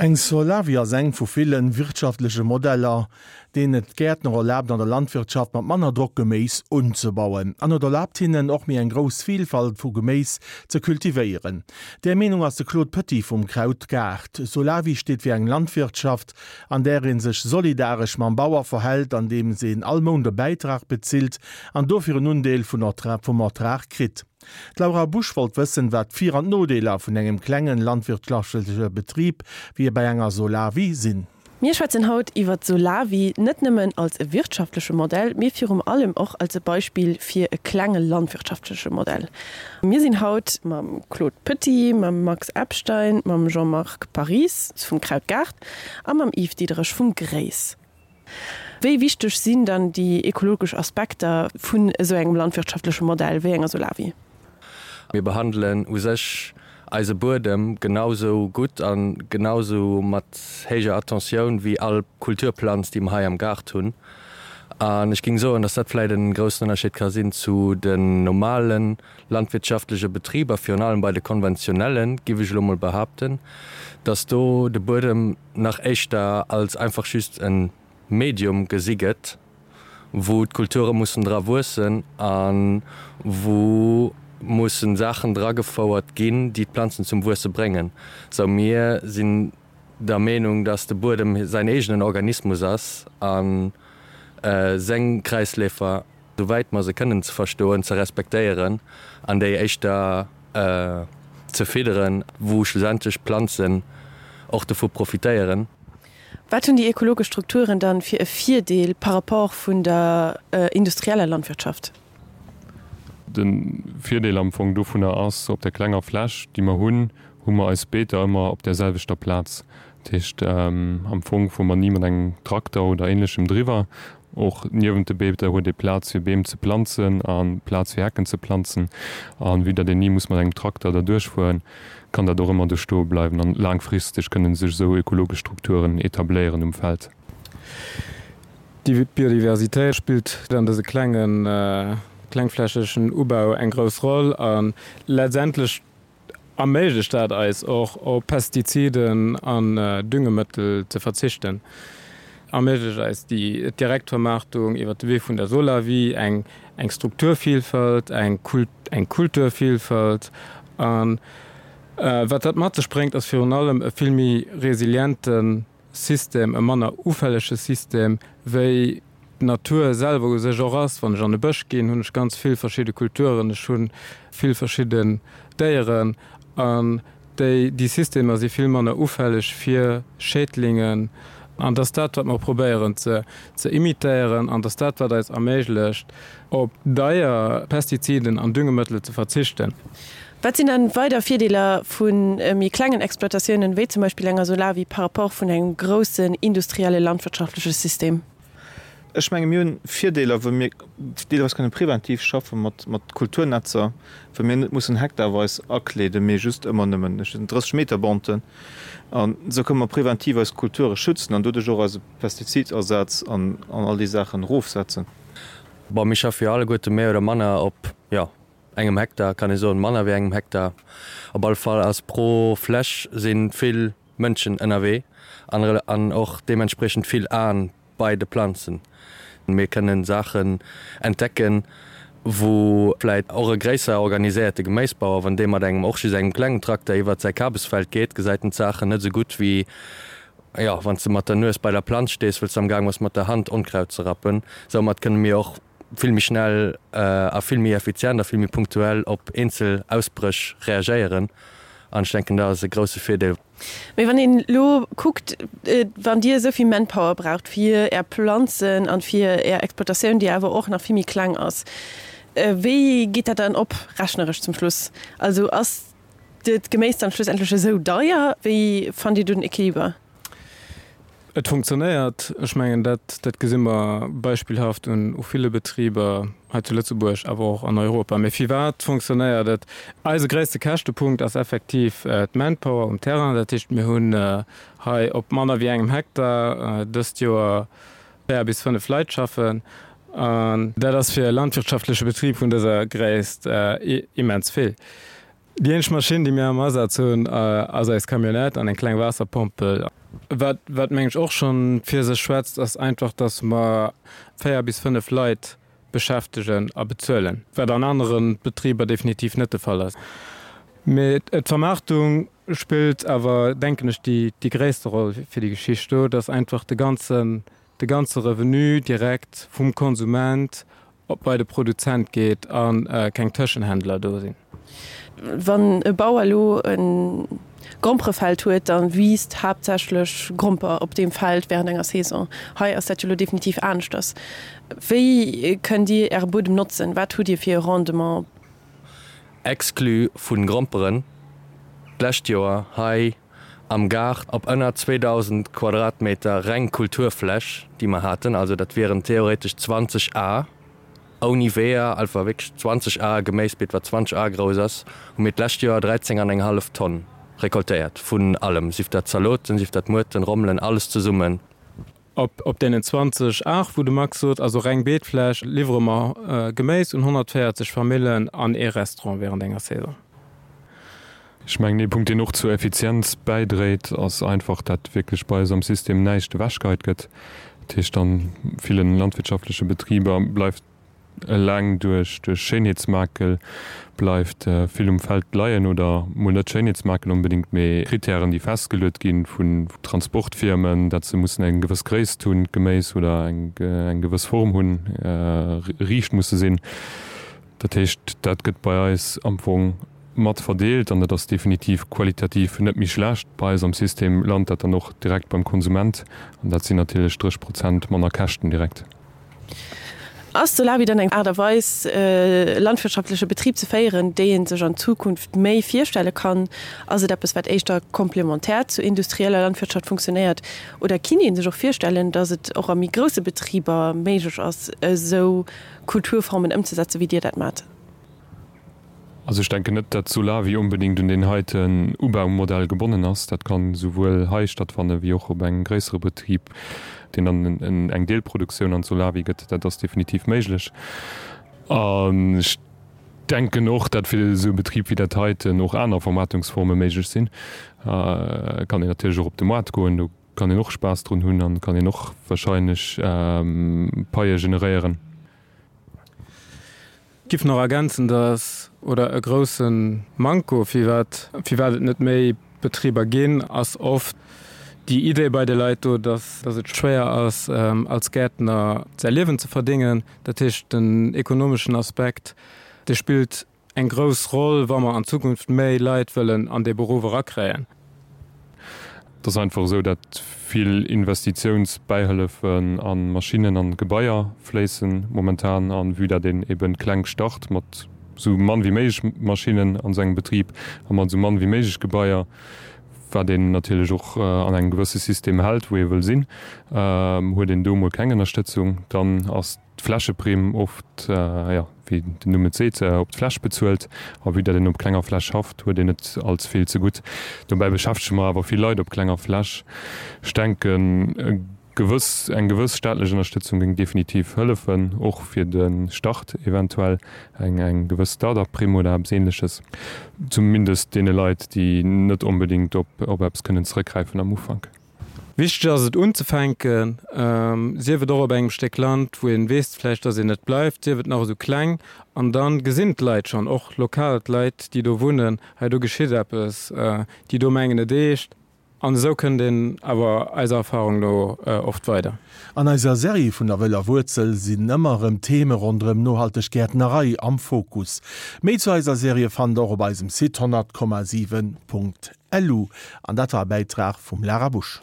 Eng Solawi ass eng vu villen wirtschaftleche Modeller, deen et Gäertner erlaabt an der Landwirtschaft mat manner Drock Geméis unzebauen. An et erlaabt hinnen och méi eng grouss Vilfalt vu Geméis ze kultivéieren. Där Meenung ass de Claude Petit vum Krautgaart. Solawi steet fir eng Landwirtschaft, an där ee sech solidaresch mam Bauer verhält, andeems een all Mount e Bäitrag bezilt an dofir en Undeel vum Ertrag kritt. D'Laura Busch wollt wëssen, wat d'Vir an d'Nodeeler vun engem klengen landwirtschaftleche Betrib wéi bei enger Solawi sinn. Mir schwätzen haut iwwer d'Solawi, net nëmmen als e wirtschaftleche Modell, mee virum allem och als e Beispill fir e klenge landwirtschaftleche Modell. Mir sinn haut mam Claude Petit, mam Max Epstein, mam Jean-Marc Parries vum Krautgaart a mam Yves Diederich vum GRÉIS. Wéi wichteg sinn dann déi ekologesch Aspekter vun esou engem landwirtschaftleche Modell wéi enger Solawi? Mir behandelen u sech eise Buedem genau sou gutt a genau sou mat héijer Attentioun wéi all Kulturplanz, déi mer hei am Gaart hunn. An ech géing soen, dass dat vläicht e groussen Ënnerscheed ka sinn zu den normale landwirtschaftleche Betriber, virun allem bei de konventionellen, giff ech elo mol behaapten, dass do de Buedem nach éischter als einfach just e Medium gesi gëtt, wou d'Kulture mussen dra wuessen a wou musse Saachen dragefouert ginn, déi d'Planzen zum Wuesse bréngen. Sou mir sinn der Meenung, dass de Buedem säin eegenen Organismus ass a seng Kräisleefer, souwäit mer se kënnen ze verstoen, ze respektéieren an déi éischter ze fidderen, wou schlussendlech d'Planzen och dovu profitéieren. Wat hunn déi ekologesch Strukturen dann fir e Virdeel par rapport vun der industrieller Landwirtschaft? De Virdeel am Fong dovunner ass, op der klenger Fläch, déi mer hunn, hu mer eis Beeter ëmmer op där selwechter Plaz. Dat heescht, am Fong fuere mer ni mat engem Trakter oder Ähnlechem driwwer. Och niewent de Beeter huet ee Plaz fir Beem ze planzen a Plaz fir Hecken ze planzen. A vue datt een ni muss mat engem Trakter derduerch fueren, kann dat och ëmmer do stoe bleiwen. An laangfristeg kënne sech esou ökologesch Strukturen etabléieren um Feld. D'Biodiversitéit spillt an dëse klengen, klengflächegen Ubau eng grouss Roll a letztendlech erméiglecht dat eis och op Pestiziden an Düngemëttel ze verzichten, erméiglecht eis déi Direktvermaartung iwwer de Wee vun der Solawi eng eng Strukturvielfalt, eng eng Kulturvielfalt. An wat dat mat sech bréngt, ass virun allem e vill méi resiliente System, e manner ufällege System, wéi d'Natur selwer u sech och ass. Wann ech an e Bësch ginn, hunn ech ganz vill verschidde Kulturen, ech hu vill verschidden Déieren an déi, déi Systemer si vill manner ufälleg fir Schädlingen. An dass dat, wat mer probéieren ze ze imitéieren an dass dat, wat eis erméiglecht, op deier Pestiziden an Düngemëttel ze verzichten. Wat sinn dann weider Virdeeler vu méi klengen Exploitatiounen, wéi zum Beispill enger Solawi, par rapport vun engem groussen industrielle landwirtschaftleche System? Ech menge mir hunn Virdeeler, wou mir deelweis kënne preventiv schaffe mat mat Kulturnetzer, wou mir net mussen hektarweis akleeden, mee just ëmmer nëmmen 30 Meter Banten. An esou kënne mer preventiv eis Kulture schützen an doduerch och eise Pestizidasaz an all déi Saachen erofsetzen. Bon, mir schaffe jo alleguerte méi oder manner op, jo, engem Hektar, kann ee soen, manner wéi engem Hektar. Op alle Fall ass pro Fläch si vill Mënschen ënnerwee an och deementspriechend vill Aen bei de Planzen. Mir kënnen Saachen entdecken, wou vläit och e gréisser organiséierte Geméisbauer, wann dee mat engem och just engem klengen Trakter iwwert säi Kabesfeld geet, gesäit en d'Saachen net esou gutt wéi, jo, wann s de mat der Nues bei der Planz stees, wëll s de am Gaang bass mat der Hand Onkraut ze rappen. Soumat kënne mir och vill méi schnell a vill méi effizient a vill méi punktuell op eenzel Ausbréch reagéieren an ech denken, dat ass e grousse Virdeel. Mee wann een elo kuckt, wann Dir esou vill Manpower braucht fir Är Planzen an fir Är Exploitatioun, déi awer och nach vill méi kleng ass, wéi geet dat dann op rechneresch zum Schluss? Also ass d'Geméis dann schlussendlech esou deier? Wéi fannt Dir do den Equiliber? Et funktionéiert. Ech mengen, dat, dat gesi mer beispillhaft un u ville Betriber hei zu Lëtzebuerg, awer och an Europa. Mee firwat funktionéiert et? Eise gréisste Käschtepunkt ass effektiv d'Manpower um Terrain. Dat heescht, mir hunn hei op manner wéi engem Hektar dëst Joer 4 bis 5 Leit schaffen. An dat ass fir e landwirtschaftleche Betrib vun dëser Gréisst immens vill. Déi eenzeg Maschinn, déi mir am Asaz hunn, ass eis Camionnette an eng kleng Waasserpompel. Wat, wat meng ech och schonn fir sech schwätzt, ass einfach, dass mer 4 bis 5 Leit beschäftegen a bezuelen, wat an anere Betriber definitiv net de Fall ass. Mee d'Vermaartung spillt awer, denken ech, déi, déi gréisste Roll fir déi Geschicht do, dass einfach de ganzen, de ganze Revenu direkt vum Konsument op bei de Produzent geet a keng Tëschenhändler do sinn. Wann e Bauer elo e Gromperefeld huet, da wiisst haaptsächlech Gromper op deem Feld wärend enger Saison. Hei ass dat jo elo definitiv aneschters. Wéi kënnt Dir Äre Buedem notzen? Wat hutt Dir fir e Rendement? Exclu vun Gromperen, d'lescht Joer hei am Gaart op ënner 2.000 Quadratmeter reng Kulturfläch, déi mer haten, also dat wieren theoretesch 20 Ar ouni Weeër, einfach wierklech 20 Ar Geméisbeet, wat 20 Ar grouss ass, hu mir d'lescht Joer 13 an eng hallef Tonn recoltéiert vun allem, sief dat Zaloten, sief dat Muerten, Rommelen, alles zesummen. Op deenen 20 Ar, wou de Max sot, also reng Beetfläch, liwwere mer Geméis un 140 Famillen an ee Restaurant wärend enger Saison. Ech mengen, ee Punkt, deen och zur Effizienz bäidréit, ass einfach, dat wierklech bei eis am System näischt ewechgeheit gëtt. Dat heescht, a ville landwirtschaftleche Betriber bleift Eleng duerch Schéinheetsmakel bleift vill um Feld leien, oder mol net Schéinheetsmakel onbedéngt, mee Kritären, déi festgeluet gi vun Transportfirmen, dat se mussen eng gewëss Gréisst hunn, d'Geméis, oder eng gewëss Form hunn, riicht musse sinn. Dat heescht, dat gëtt bei eis am Fong mat verdeelt an dat ass definitiv qualitativ net méi schlecht. Bei eis am System lant dat dann och direkt beim Konsument an dat sinn natierlech 30 Prozent manner Käschten direkt. Ass Solawi dann eng Aart a Weis, e landwirtschaftleche Betrib ze féieren, déi ee sech an Zukunft méi virstelle kann? Ass et eppes, wat éischter komplementär zur industrieller Landwirtschaft funktionéiert? Oder kinnt ee sech och virstellen, datt et och a méi grousse Betriber méiglech ass, esou Kulturformen ëmzesetzen, wéi Dir dat maacht? Also ech denken net, dat Solawi onbedéngt un deen heiten Ubaumodell gebonnen ass. Dat kann esouwuel hei stattfanne wéi och op engem gréissere Betrib, deen dann eng Deelproduktioun an d'Solawi gëtt. Dat ass definitiv méiglech. An ech denken och, dat fir esou e Betrib wéi dat heiten och aner Vermaartungsforme méiglech sinn. Et kann een natierlech och op de Moart goen, do kann een och Spaass drun hunn an kann een och wahrscheinlech Paie generéieren. Giff nach ergänzen, dass, oder e grousse Manko, firwat firwat et net méi Betriber ginn, ass oft déi Idee bei de Leit do, dass dass et schwéier ass als Gäertner säi Liewen ze verdéngen. Dat heescht, den ekonomeschen Aspekt, dee spillt eng grouss Roll, wa mer an Zukunft méi Leit wëllen an dee Beruff erakréien. Et ass einfach esou, dat vill Investitiounsbäihëllefen a Maschinnen an Gebaier fléissen momentan. An vue dat een eben kleng start mat esou mann wéi méiglech Maschinnen an sengem Betrib a mat esou mann wéi méiglech Gebaier, wat een natierlech och an engem gewësse System hält, wou ee wëll sinn, huet een do mol keng Ënnerstëtzung. Dann ass d'Flächeprimm oft, jo, wéi den Numm et seet, op d'Fläch bezuelt. A vue dat een op klenger Fläch schafft, huet een net als vill zegutt. Dobäi beschäftege mer awer vill Leit op klenger Fläch. Ech denken, e gewëss, eng gewëss staatlech Ënnerstëtzung géing definitiv hëllefen, och fir de Start eventuell, eng, eng gewëss Start-up-Primm oder eppes Ähnleches, zumindest deene Leit, déi net onbedéngt op, op eppes kënnen zeréckgräifen am Ufank. Wichteg ass et unzefänken, sief et och op engem Stéck Land, wou een weess vläicht, dass een net bleift, sief et nach esou kleng, an da gesinn d'Leit schonn, och lokal d'Leit, déi do wunnen, hei do geschitt eppes, déi do mengen et eescht. An esou kënnt een awer eiser Erfahrung no oft weider. An eiser Serie vun der wëller Wuerzel sinn ëmmer erëm Theme ronderëm nohalteg Gäertnerei am Fokus. Méi zu eiser Serie fannt der och op eisem Site 100,7.lu. An dat war e Bäitrag vum Lara Busch.